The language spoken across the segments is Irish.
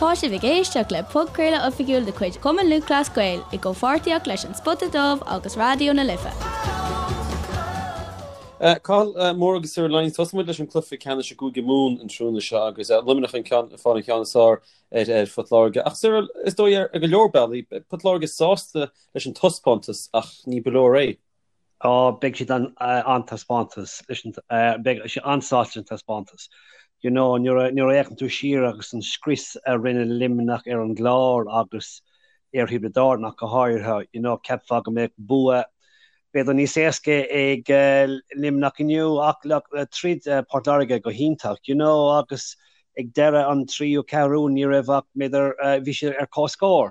Tá sibh ag éisteacht le podchraoladh oifigiúil de chuid Chumann Lúthchleas Gael i gcomhpháirtíocht leis An Spota Dubh agus Raidió na Life. Cathal Moore agus Cyril Lyons, tosóidh muid leis an cluiche ceannais i gCúige Mumhan an tráthnóna seo agus Luimneach ag fáil an cheann is fearr ar Phort Láirge. Ach Cyril, is dóigh ar go leor bealaí, beidh Port Láirge sásta leis an taispeántas ach ní ba leor é. Á, beidh siad an-taispeántas leis an, beidh siad an-sásta leis an taispeántas. You know, nuair a, nuair a fhéachann tú siar agus an scrios a rinne Luimneach ar an gClár agus ar Thiobraid Árann ach go háirithe, you know, cheapfá go mbeadh bua b'fhéidir níos éasca ag Luimneach inniu ach look, throid Port Láirge go hiontach, you know, agus ag deireadh an tríú ceathrú ní raibh ach b'fhéidir, bhí siad ar comhscór.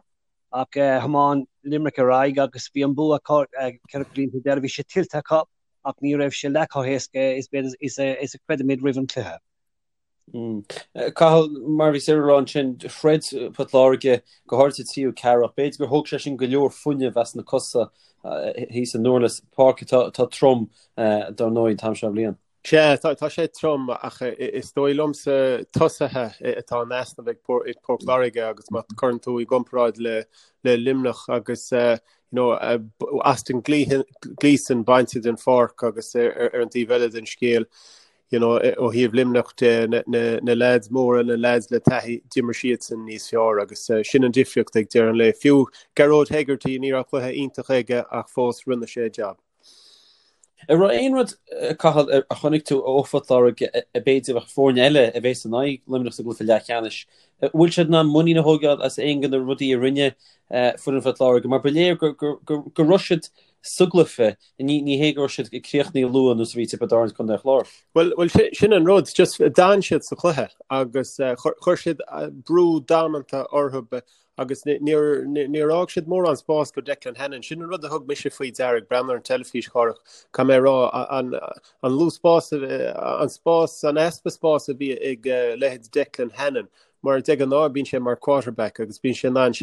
Ach thiomáin Limerick ar aghaidh agus bhí an bua acu 4 cúilín faoi dheireadh. Bhí sé tuillte acu ach ní raibh sé leath chomh héasca is is a chreidimid roimh an chluiche. Cathal, mar a bhí Cyril a rá ansin, throid Port Láirge go háirithe sa tríú ceathrú ach b'fhéidir gur thóg sé sin go leor fuinnimh as na cosa thíos i nDurlas, páirc atá trom dar ndóigh an t-am seo bliain. Sea, tá sé trom ach is dóigh liomsa tosaithe atá in easnamh ag Port Láirge agus má chuireann tú i gcomparáid le Luimneach agus you know Austin Gleeson bainte den pháirc agus ar an taobh eile den scéal you know ó thaobh Luimneach de na leaids móra, na leaids le taithí, d'imir siadsan níos fearr agus sin an difríocht ag deireadh an lae. Fiú Gearóid Hegarty, ní raibh cluiche iontach aige ach fós rinne sé a jab. An raibh aon rud, Cathal, a chonaic tú ó Phort Láirge a b'fhéidir bheadh foirne eile a bheas in aghaidh Luimneach sa gcluiche leathcheannais, an bhfuil siad in ann muinín a thógáil as aon de na rudaí a rinne foireann Phort Láirge? Mar ba léir go raibh siad sa gcluiche, ní hé go raibh siad críochnaithe luath ar nós a bhí Tiobraid Árann is Contae an Chláir. Bhuel, sin an rud, just d'fhan siad sa chluiche agus chuir siad brú damanta orthu. Agus níor fhág siad mórán spás go Declan Hannon. Sin an rud a thug mise faoi deara ag breathnú ar an teilifís, a Chárthach, caithfidh mé a rá, an lú spás, an spás, an easpa spás a bhí ag leithéid Declan Hannon, mar de ghnáth bíonn sé mar quarterback agus bíonn sé in ann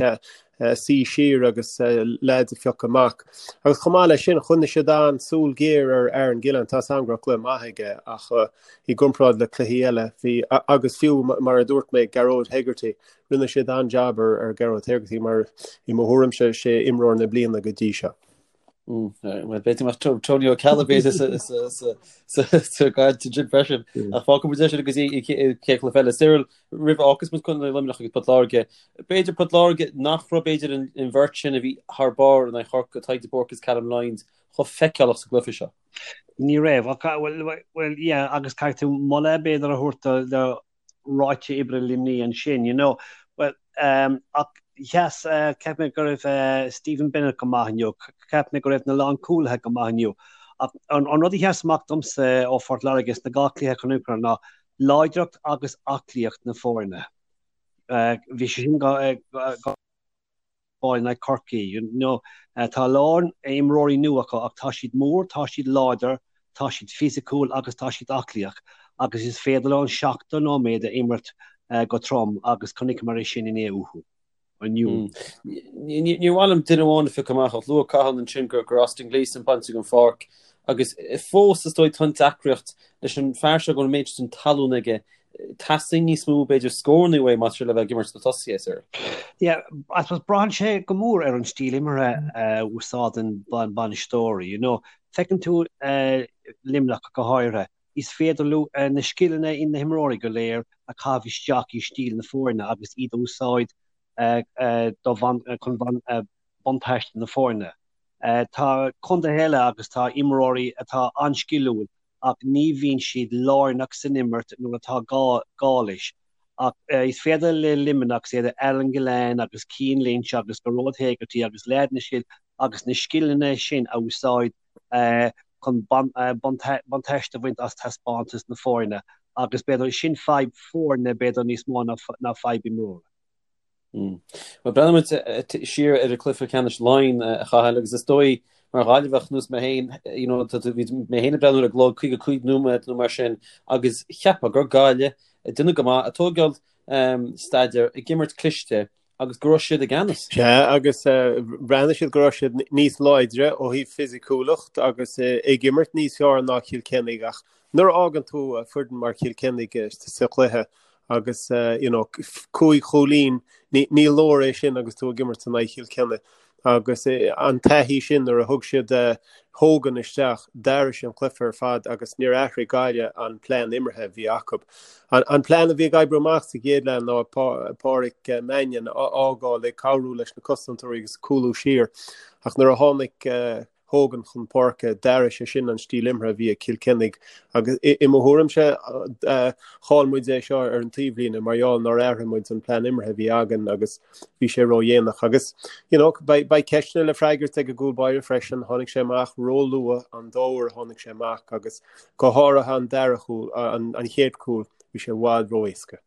suí siar agus leaids a phiocadh amach. Agus chomh maith leis sin, choinnigh siad an-súil ghéar ar Aaron Gillane. Tá a fhios agam go raibh cluiche maith aige ach i gcomparáid le cluichí eile, bhí, agus fiú mar a dúirt mé, Gearóid Hegarty, Rinne siad an-jab ar Gearóid Hegarty mar i mo thuairimse sé imreoir na bliana go dtí seo. Bhuel b'fhéidir go mbeadh Tony O'Callaghan b'fhéidir sa gcaint ansin freisin. Ach fágfaidh muid é sin go dtí an chéad chluiche eile. Cyril, roimh a fhágfas muid Contae Luimneach agus Port Láirge, b'fhéidir Port Láirge nach raibh b'fhéidir an bheirt sin a bhí thar barr in aghaidh Chorcaí, Tadhg de Búrca agus Callum Lyons, chomh feiceálach sa gcluiche seo. Ní raibh. Bhuel, yeah, agus caithfidh tú moladh b'fhéidir a thabhairt do ráta oibre Luimnigh ansin, you know. Well, um, ach sheas, uh, cheap mé go raibh uh, Stephen Bennett go maith inniu, cheap mé go raibh na lánchúlaithe go maith inniu. Ach an, an rud a sheas amach domsa ó Phort Láirge sna dhá chluiche a chonaiceamar ná láidreacht agus aclaíocht na foirne. Uh, bhí sé sin go, uh, go fáil in aghaidh Chorcaí. You know, tá a lán imreoirí nua acu ach tá siad mór, tá siad láidir, tá siad fisiciúil agus tá siad aclaíoch agus is féidir leo an 70 nóiméad a imirt go trom agus chonaiceamar é sin inné uathu. Inniu. Níor mhaith liom duine amháin a phiocadh amach ach luaigh Cathal ansin gur Austin Gleeson bainte den pháirc agus fós is dóigh tá an deacracht leis an fear seo go bhfuil an méid sin talún aige Teastaíonn níos mó, b'fhéidir, scóranna uaidh más le bheith ag imirt sna tosaithe, Cyril. Yeah, I suppose braitheann sé go mór ar an stíl imeartha a úsáideann bainisteoirí, you know. Feiceann tú Luimneach go háirithe, is féidir leo na scileanna in na himreoirí go léir a chaitheamh isteach i stíl na foirne agus iad a úsáid chun buntáiste na foirne. Tá contaetha eile agus tá imreoirí atá an-sciliúil ach ní bhíonn siad lárnach san imirt nuair atá gá leis. Ach is féidir le Luimneach, is iad Aaron Gillane agus Cian Lynch agus Gearóid Hegarty agus leaideanna sin agus na scileanna sin a úsáid chun buntáiste a bhaint as taispeántas na foirne agus b'fhéidir sin fadhb foirne b'fhéidir níos mó ná fadhb imreora. Bhuel, breathnóidh muid siar ar an cluiche ceannais Laighean, a Chathail, agus is dóigh, mar Ghaillimheach nós mé féin, you know, bhí mé féin ag breathnú ar an gclog, 55 nóiméad nó mar sin, agus cheapfá gur Gaillimh ag déanamh go maith, ag tógáil staidéar, ag imirt cliste, agus go raibh siad i gceannas. Sea, agus bhreathnaigh siad go raibh siad níos láidre ó thaobh fisiciúlacht agus ag imirt níos fearr ná Cill Chainnigh, ach nuair a fhágann tú foireann mar Chill Chainnigh sa chluiche. Agus you know 5 chúilín, ní leor é sin agus tú ag imirt in aghaidh Chill Chainnigh. Agus an taithí sin nuair a thug siad Hogan isteach, d'athraigh sé an cluiche ar fad agus níor athraigh Gaillimh an plean imeartha a bhí acu. An plean a bhí ag oibriú amach sa gcéad leath ná Páraic Mannion a fhágáil ag cabhrú leis na cosantóirí agus cúlú siar ach nuair a tháinig Hogan chun páirce, d'athraigh sé sin an stíl imeartha a bhí ag Cill Chainnigh agus i mo thuairimse chaill muid é seo ar an taobhlíne mar gheall nár athraigh muid an plean imeartha a bhí againn agus bhí sé ródhéanach. Agus you know beidh ceisteanna le freagairt ag an gcúl báire freisin, tháinig sé amach róluath an dá uair a tháinig sé amach agus go háirithe an dara chúl, an chéad chúl, bhí sé i bhfad ró-éasca.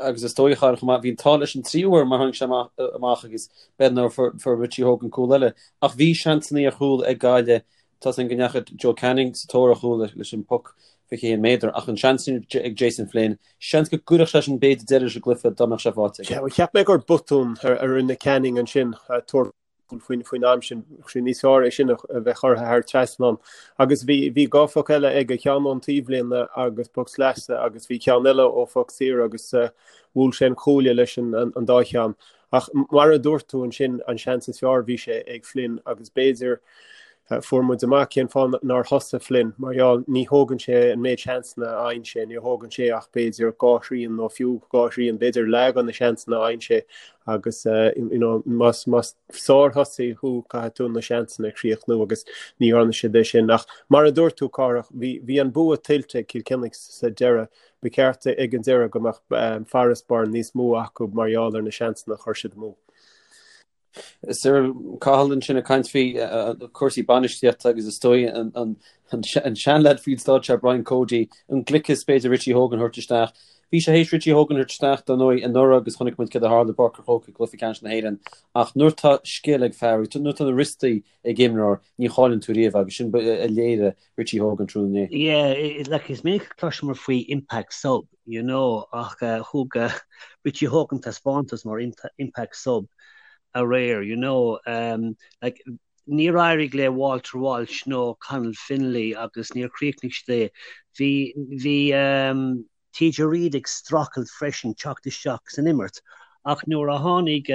agus is dóigh chomh maith, bhí an t-ádh leis an tríú huair mar tháinig sé amach agus b'fhéidir nár fuair Richie Hogan cúl eile. Ach bhí seansanna ar chúl ag Gaillimh, tá a fhios againn go ndeachaigh Joe Canning sa tóir ar chúl leis an bpoc 21 méadar ach an seans sin ag Jason Flynn, seans go gcuirfeadh sé sin b'fhéidir deireadh leis an gcluiche dá mbeadh sé faighte aige. Cheap mé gur botún a rinne Canning ansin tabhairt faoin am sin, bheadh sé níos fearr é sin a bheith curtha thar trasnán. Agus bhí bhí dhá phoc eile aige, ceann ón taobhlíne agus poc sleasa agus bhí ceann eile ó phoc saor agus bhuail sé an cuaille leis an an dá cheann. Ach mar a dúirt tú ansin, an seans is fearr bhí sé ag Flynn agus b'fhéidir fuair muid amach cén fáth nár thosaigh Flynn, mar gheall ní thógann sé an méid seansanna a fhaigheann sé, ní thógann sé ach b'fhéidir dhá thrian nó fiú dhá thrian, b'fhéidir leath de na seansanna a fhaigheann sé agus you know más más sárthosaí thú caithfidh tú na seansanna a chríochnú agus ní dhearna siad é sin. Ach mar a dúirt tú Cárthach, bhí bhí an bua tuillte ag Cill Chainnigh sa deireadh. Ba cheart ag an deireadh go mbeadh farasbarr níos mó acu mar gheall ar na seansanna a chuir siad amú. Cyril Cathal ansin ag caint faoi cúrsaí bainistíochta agus is dóigh an seanleaid faoin stáitse Brian Cody, an gliceas b'fhéidir Richie Hogan a thabhairt isteach. Bhí sé théis Richie Hogan a thabhairt isteach dar ndóigh anuraidh agus chonaic muid céard a tharla i bPáirc an Chrócaigh i gcluiche ceannais na hÉireann ach nuair tá scil ag fear, nuair tá na wriostaí ag imreoir ní chailleann tú riamh agus sin a léirigh Richie Hogan tráthnóna inné. Yeah, like is minic a chloisimid faoi impact sub, you know, ach thug Richie Hogan taispeántas mar impact sub aréir, you know, like níor éirigh le Walter Walsh nó Conal Fennelly agus níor chríochnaigh siad é. Bhí bhí TJ Reid ag streachailt freisin teacht isteach san imirt ach nuair a tháinig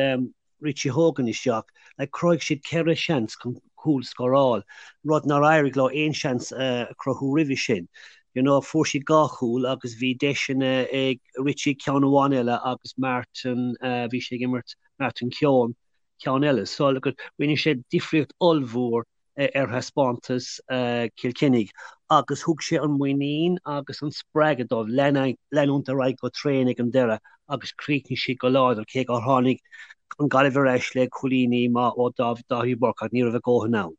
Richie Hogan isteach, like chruthaigh siad ceithre sheans chun cúl scóráil, rud nár éirigh leo aon seans a chruthú roimhe sin. You know, fuair siad dhá chúl agus bhí deiseanna ag Richie ceann amháin eile agus Martin, bhí sé ag imirt, Martin Keoghan, ceann eile. So, look, rinne sé difríocht ollmhór ar thaispeántas Chill Chainnigh agus thug sé an muinín agus an spreagadh dóibh leanúint ar aghaidh go tréan ag an deireadh agus chríochnaigh siad go láidir cé gur tháinig an Ghaillimh ar ais le cúilíní maith ó Dáithí Burke ach ní raibh a dhóthain ann.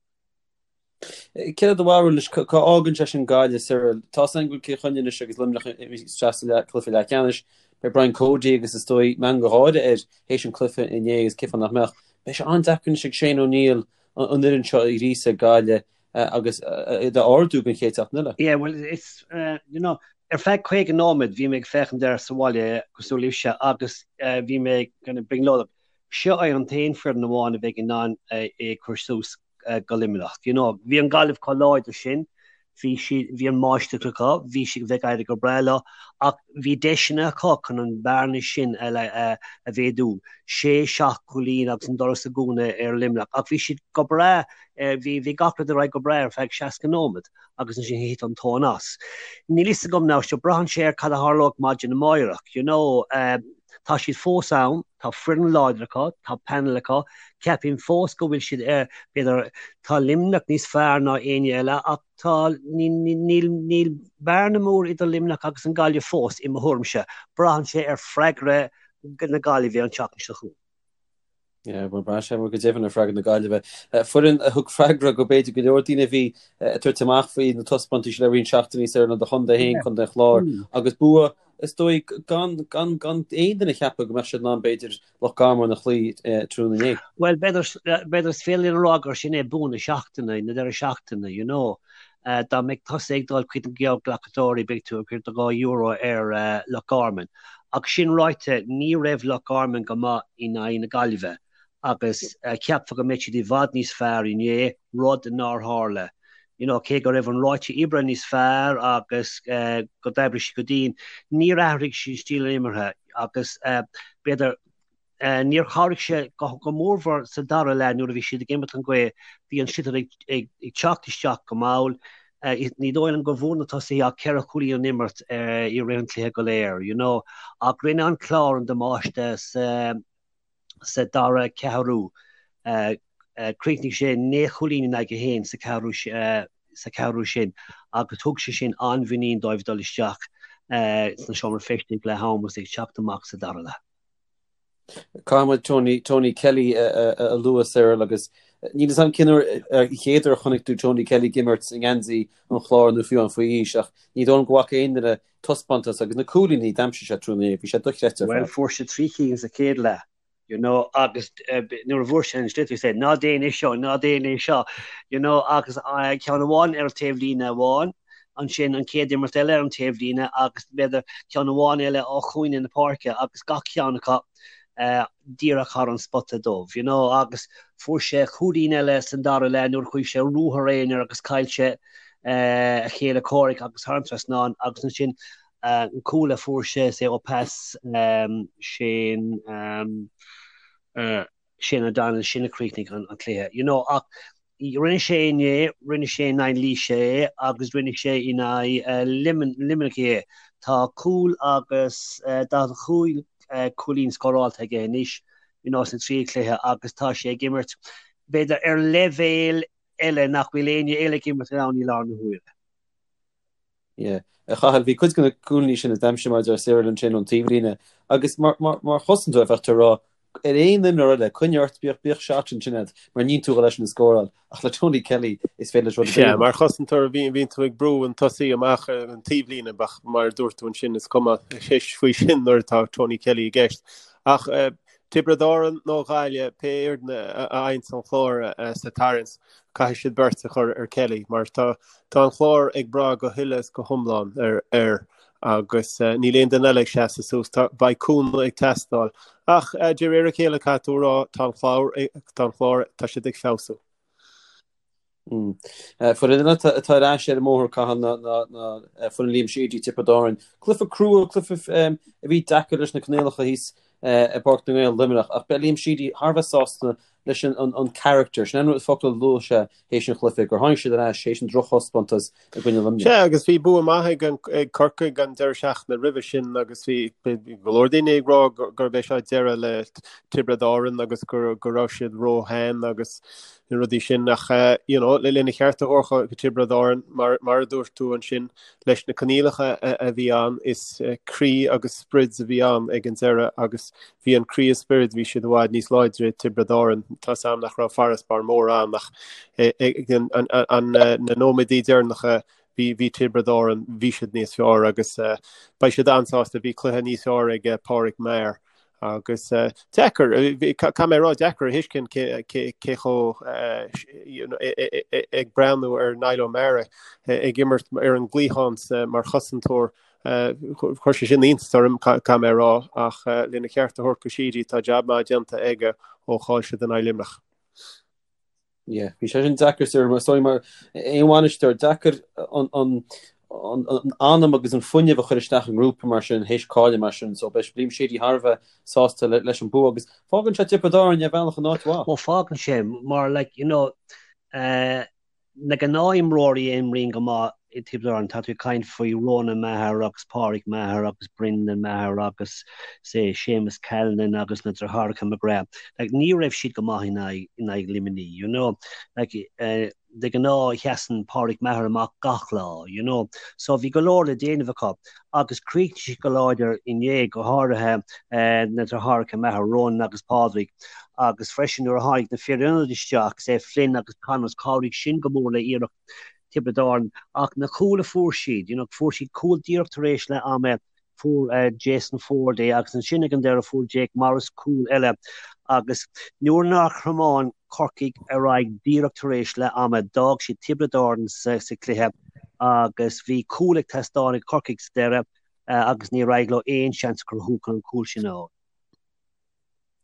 Céard é do bharúil anois, cá fhágann sé sin Gaillimh, Cyril? Tá a fhios againn go bhfuil Cill Chainnigh anois agus Luimneach isteach sa cluiche leathcheannais. Beidh Brian Cody agus is dóigh meangadh gáire air théis an cluiche inné agus cén fáth nach mbeadh. Beidh sé an-deacair anois ag Shane O'Neill an fhoireann seo a ghríosadh ag Gaillimh agus iad a ardú don chéad seachtain eile. Yeah, well, it's, you know, ar feadh 50 nóiméad bhí mé ag féachaint air sa bhaile cosúil libhse agus bhí mé kind of brionglóideach. Seo é an t-aon foireann amháin a bheidh in ann é a chur suas go Luimneach. You know, bhí an Gaillimh chomh láidir sin, bhí siad, bhí an máistreacht acu, bhí siad ag éirí go breá leo, ach bhí deiseanna acu chun an bearna sin a, a, a mhéadú, sé, seacht gcúilín agus an doras a dhúnadh ar Luimneach, ach bhí siad go breá, bhí, bhí gach rud ar aghaidh go breá ar feadh 60 nóiméad agus ansin thit an tóin as. Níl fhios agam now, seo braitheann sé ar cad a tharlóidh maidin amáireach, you know, tá siad fós ann, tá foireann láidir acu, tá panel acu, ceapaim fós go bhfuil siad ar, b'fhéidir, tá Luimneach níos fearr ná éinne eile ach tá, níl, níl bearna mór idir Luimneach agus an Gaillimh fós, i mo thuairimse. Braitheann sé ar freagra na Gaillimhe an tseachtain seo chugainn. Yeah, bhuel, braitheann sé go deimhin ar freagra na Gaillimhe. Foireann a thug freagra go b'fhéidir go leor daoine a bhí ag tabhairt amach faoi na taispeántais le roinnt seachtainí Cyril ná do chontae féin, Contae an Chláir, agus bua is dóigh gan gan gan aon duine a cheapadh go mbeadh siad in ann b'fhéidir Loch Garman a chloí tráthnóna inné. Bhuel, b'fhéidir b'fhéidir is féidir linn a rá gur sin é bua na seachtaine, na deireadh seachtaine, you know. Dá mbeadh tusa ag dul chuig na geallghlacadóirí beidh tú ag cur do €2 ar Loch Garman. Ach sin ráite, ní raibh Loch Garman go maith in aghaidh na Gaillimhe agus cheapfá go mbeadh siad i bhfad níos fearr inné, rud nár tharla. You know, cé go raibh an ráite oibre níos fearr agus go d'oibrigh siad go dian, níor athraigh siad stíl an imeartha agus b'fhéidir níor chabhraigh sé go mórmhór sa dara leath nuair a bhí siad ag imirt an ghaoth, bhí an sliotar ag teacht isteach go mall. Ní dóigh liom go bhfuair na tosaithe ach 4 chúilín ón imirt i rith an chluiche go léir, you know. Ach rinne an Clár an damáiste sa sa dara ceathrú. Chríochnaigh sé 9 chúilín in aghaidh 1 sa cheathrú sa cheathrú sin agus thug sé sin an-mhuinín dóibh dul isteach sna seomra feistis ag leath am agus ag teacht amach sa dara leath. Caithfidh muid Tony, Tony Kelly a lua, Cyril, agus níl 'fhios a'm cén uair an chéad uair a chonaic tú Tony Kelly ag imirt i ngeansaí an Chláir nó fiú amháin faoi aois ach ní dóigh liom go bhfaca aon duine taispeántas agus na cúilíní a d'aimsigh sé tráthnóna inné, bhí sé dochreidte ar fad. Bhuel, fuair sé 3 cinn sa chéad leath, you know, agus nuair a bhfuair sé an sliotar, he said, ná déan é seo, ná déan é seo, you know, agus ceann amháin ar an taobhlíne amháin, ansin an chéad imirt eile ar an taobhlíne agus b'fhéidir ceann amháin eile ó chúinne na páirce agus gach ceann acu díreach thar an spota dubh, you know, agus fuair sé cúilín eile san dara leath nuair a chuaigh sé ruathar aonair agus chaill sé a chéile comhraic agus thar an trasnán agus ansin an cúl a fuair sé sé ó pas Shane Shane O'Donnell sin a chríochnaigh an cluiche you know ach rinne sé inné, rinne sé in aghaidh Laoise é agus rinne sé in aghaidh Luimneach é. Tá cúl agus 45 cúilín scórálta aige anois you know sna trí chluiche agus tá sé ag imirt b'fhéidir ar leibhéal eile nach bhfuil éinne eile ag imirt ann i láthair na huaire. Yeah. A Chathail, bhí cuid de na cúilíní sin a d'aimsigh mar a deir Cyril ansin ón taobhlíne agus mar, mar, mar chosantóir bheadh tú ag rá ar aon imreoir eile, coinnigh ort, bíodh, bíodh shot ansin agat mar níl tú ag dul eisean a scóráil ach le Tony Kelly is féidir leis rud ar bith a Sea, mar chosantóir bhí, bhíonn tú ag brú an tosaí amach ar an taobhlíne ach mar a dúirt tú ansin is cuma faoi sin nuair atá Tony Kelly i gceist. Ach eh, Tiobraid Árann nó Gaillimh, pé fhoireann a fhaigheanns an Clár sa tarraingt, caithfidh siad beirt a chur ar Kelly mar tá tá an Clár ag brath go huile is go hiomlán ar air agus níl aon duine eile ag seasamh suas. Tá beidh cúnamh ag teastáil. Ach de réir a chéile caithfidh tú a rá tá an Clár tá an Clár tá siad ag feabhsú. Foireann eile atá ar ais ar an mbóthar, Cathal, ná foireann Liam Sheedy, Tiobraid Árann. Cluiche crua, cluiche a bhí deacair leis na coinníollacha thíos i bPáirc na nGael, Luimneach, ach beidh Liam Sheedy thar a bheith sásta leis an character, sin an focal a luaigh sé théis an chluiche, gur tháinig siad ar ais théis an drochthaispeántas i gcoinne Luimnigh. Sea, agus bhí bua maith ag Corcaigh an deireadh seachtaine roimhe sin agus bhí go leor daoine ag rá gurb é seo deireadh le Tiobraid Árann agus go raibh siad róshean agus na rudaí sin ach you know lena cheart a thabhairt do Tiobraid Árann mar mar a dúirt tú ansin leis na coinníollacha a bhí ann is croí agus sprid a bhí ann ag an deireadh agus bhí an croí is spiorad bhí siad i bhfad níos láidre Tiobraid Árann tá's a'm nach raibh farasbarr mór ann ach ag an an na nóiméadaí deireanacha bhí bhí Tiobraid Árann bhí siad níos fearr agus beidh siad an-sásta bhí cluiche níos fearr ag Pádraig Maher Agus deacair, caithfidh mé a rá, deacair a thuiscint cé chomh ag breathnú ar Niall O'Meara ag imirt ar an gcliathán mar chosantóir, chuir sé sin iontas orm, caithfidh mé a rá, ach lena cheart a thabhairt do Sheedy, tá jab maith déanta aige ó chaill siad in aghaidh Luimneach. Yeah, bhí sé sin deacair sir, mar sorry mar aon bhainisteoir, deacair an an an an anam agus an fuinneamh a chur isteach i ngrúpa mar sin, théis cailleadh mar sin, so beidh Liam Sheedy thar a bheith sásta le, leis an bua agus fágann sé Tiobraid Árann ar bhealach in áit mhaith. Well fágann sé mar like you know eh, Na gnáthimreoirí a imríonn go maith i Tiobraid Árann, tá tú ag caint faoi Ronan Maher agus Pádraig Maher agus Brendan Maher agus say Séamus Callanan agus na deartháireacha McGrath. Like ní raibh siad go maith in aghaidh in aghaidh Luimnigh, you know. Like eh de ghnáth sheasann Pádraig Maher amach gach lá, you know. So bhí go leor le déanamh acu agus chríochnaigh siad go láidir inné, go háirithe eh na deartháireacha Maher, Ronan agus Pádraig. agus freisin nuair a tháinig na fir ionaid isteach, say Flynn agus Connors, chabhraigh sin go mór le iarracht Tiobraid Árann. Ach na cúil a fuair siad, you know, fuair siad cúl díreach tar éis leath ama, fuair Jason Forde é agus ansin ag an deireadh fuair Jake Morris cúl eile agus nuair nár thiomáin Corcaigh ar aghaidh díreach tar éis leath ama, d'fhág siad Tiobraid Árann sa chluiche agus bhí cúl ag teastáil ag Corcaigh sa deireadh agus níor éirigh leo aon seans a chruthú chun an cúl sin a fháil.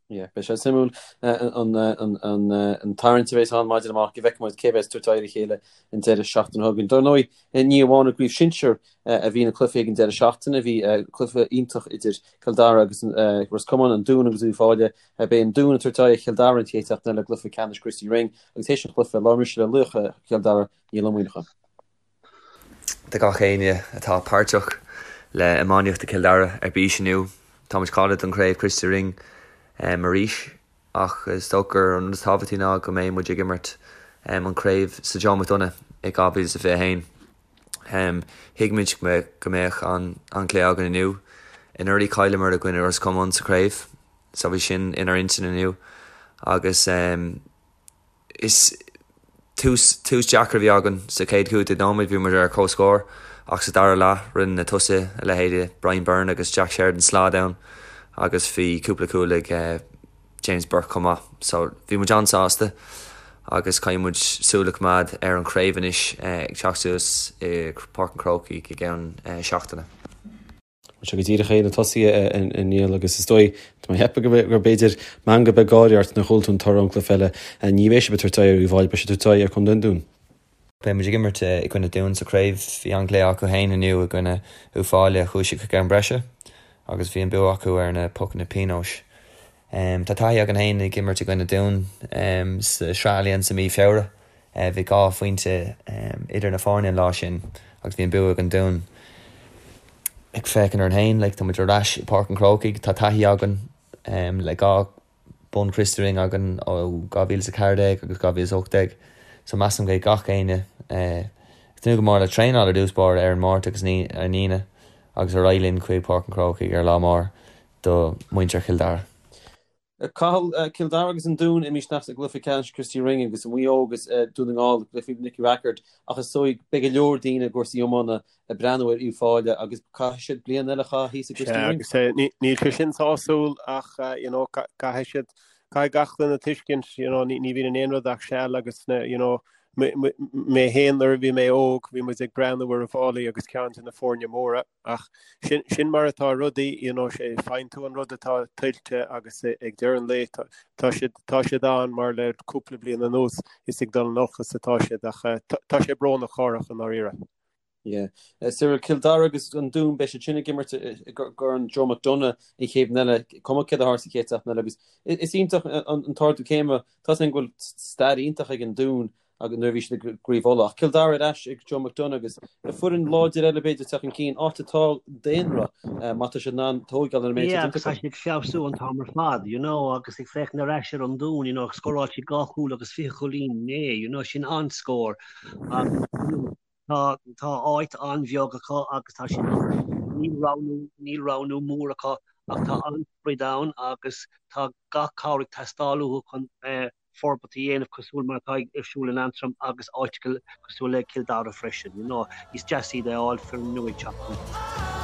Yeah, beidh sé suimiúil an tarraingt a bheas ann maidin amárach go bhfeicfidh muid cé bheas ag tabhairt aghaidh ar a chéile an deireadh seachtaine seo chugainn. Dar ndóigh, ní amháin i gcraobh shinsir a bhí na cluichí ag an deireadh seachtaine, bhí cluiche iontach idir Cill Dara agus Ros Comáin, an Dún agus Uíbh Fhailí. Beidh an Dún ag tabhairt aghaidh ar Chill Dara an chéad seachtain eile i gcluiche ceannais Christy Ring agus théis an chluiche, labhair mise le laoch Chill Dara, Niall Ó Muíneacháin. Do gach éinne atá páirteach le iománaíocht i Cill Dara ar bís inniu, tá muid cáilithe don chraobh Christy Ring arís ach is dócha gur an rud is tábhachtaí ná go mbeidh muid ag imirt an craobh sa Joe McDonagh i 2021. Thuig muid go mbeadh an-chluiche againn inniu. Anuraidh chailleamar i gcoinne Ros Comáin sa chraobh so bhí sin inár intinn inniu agus Is tús tús deacair a bhí againn sa chéad 15 nóiméad, bhí muid ar comhscór ach sa dara leath rinne na tosaithe, a leithéide Brian Byrne agus Jack Sheridan slad ann agus bhí cúpla cúl ag James Burke chomh maith. So bhí muid an-sásta agus caithfidh muid súil a choimeád ar an chraobh anois ag teacht suas i Páirc an Chrócaigh i gceann seachtaine. Bhuel seo go díreach é na tosaithe a Niall agus is dóigh, tá mé ag ceapadh gur b'fhéidir meangadh beag gáire ort nuair a chuala tú an toradh ón gcluiche eile. Ní bheidh sibh ag tabhairt aghaidh ar Uíbh Fhailí, beidh sibh ag tabhairt aghaidh ar Chontae an Dúin. Beidh muid ag imirt i gcoinne Dún sa chraobh. Bhí an-chluiche acu féin inniu i gcoinne Uíbh Fhailí, chuaigh siad chuig am breise agus bhí an bua acu ar na pocanna pionóis. Tá taithí againn féin ag imirt i gcoinne Dún sa Sraith Allianz i mí Feabhra. Bhí 2 phointe idir na foirne an lá sin agus bhí an bua ag an Dún. Ag féachaint orainn féin, like, tá muid ar ais i Páirc an Chrócaigh, tá taithí againn le 2 bonn Christy Ring againn ó 2014 agus 2018 so measaim go mbeidh gach éinne ag tnúth go mór le traenáil ar dtús báire ar an Máirt agus ar an Aoine agus ar aghaidh linn chuig Páirc an Chrócaigh ar lá mór do mhuintir Chill Dara. Cathal, Cill Dara agus an Dún imithe isteach i gcluiche ceannais Christy Ring agus Maigh Eo agus Dún na nGall i gcluiche Nicky Rackard ach is dóigh beidh go leor daoine i gcúrsaí iomána ag breathnú ar Uíbh Fhailí agus caithfidh siad bliain eile a chaitheamh thíos i gChristy Ring. Sea, agus níl sé sin sásúil ach you know caithfidh siad, caithfidh gach duine tuiscint you know ní bhíonn in aon rud ach seal agus you know mé féin nuair a bhí mé óg bhí muid ag breathnú ar Uíbh Fhailí agus ceann de na foirne móra. Ach sin, sin mar atá rudaí, you know, sé, faigheann tú an rud atá tuillte agus ag deireadh an lae tá, tá siad, tá siad ann mar le cúpla bliain anuas is ag dul in olcas atá siad ach tá, tá sé brónach corrach i ndáiríre. Yeah. Cyril, Cill Dara agus an Dún, beidh siad sin ag imirt i gCorn Joe McDonagh an chéad bhliain eile, cuma céard a tharla sa chéad seachtain eile agus is iontach an t-ardú céime, tá a fhios againn go bhfuil stair iontach ag an Dún agus nuair a bhí siad i gCraobh Uladh. Ach Cill Dara ar ais ag Joe McDonagh agus foireann láidir eile b'fhéidir ag teacht chun cinn, áit atá daonra, má tá siad in ann tóigeáil ar an méid Yeah, agus tá siad ag feabhsú an t-am ar fad, you know, agus ag féachaint ar ais ar an Dún, you know, scóráil siad 2 chúl agus 20 chúilín inné, you know, sin an-scór. Agus, you know, tá, tá áit an-bheag acu agus tá siad, níl roghnú, níl roghnú mór acu ach tá an-sprid ann agus tá gach cabhair ag teastáil uathu chun eh, forbairt a dhéanamh cosúil mar atá ar siúl in Antrim agus áiteacha cosúil le Cill Dara freisin. You know, is deas iad a fháil foireann nua ag teacht chun.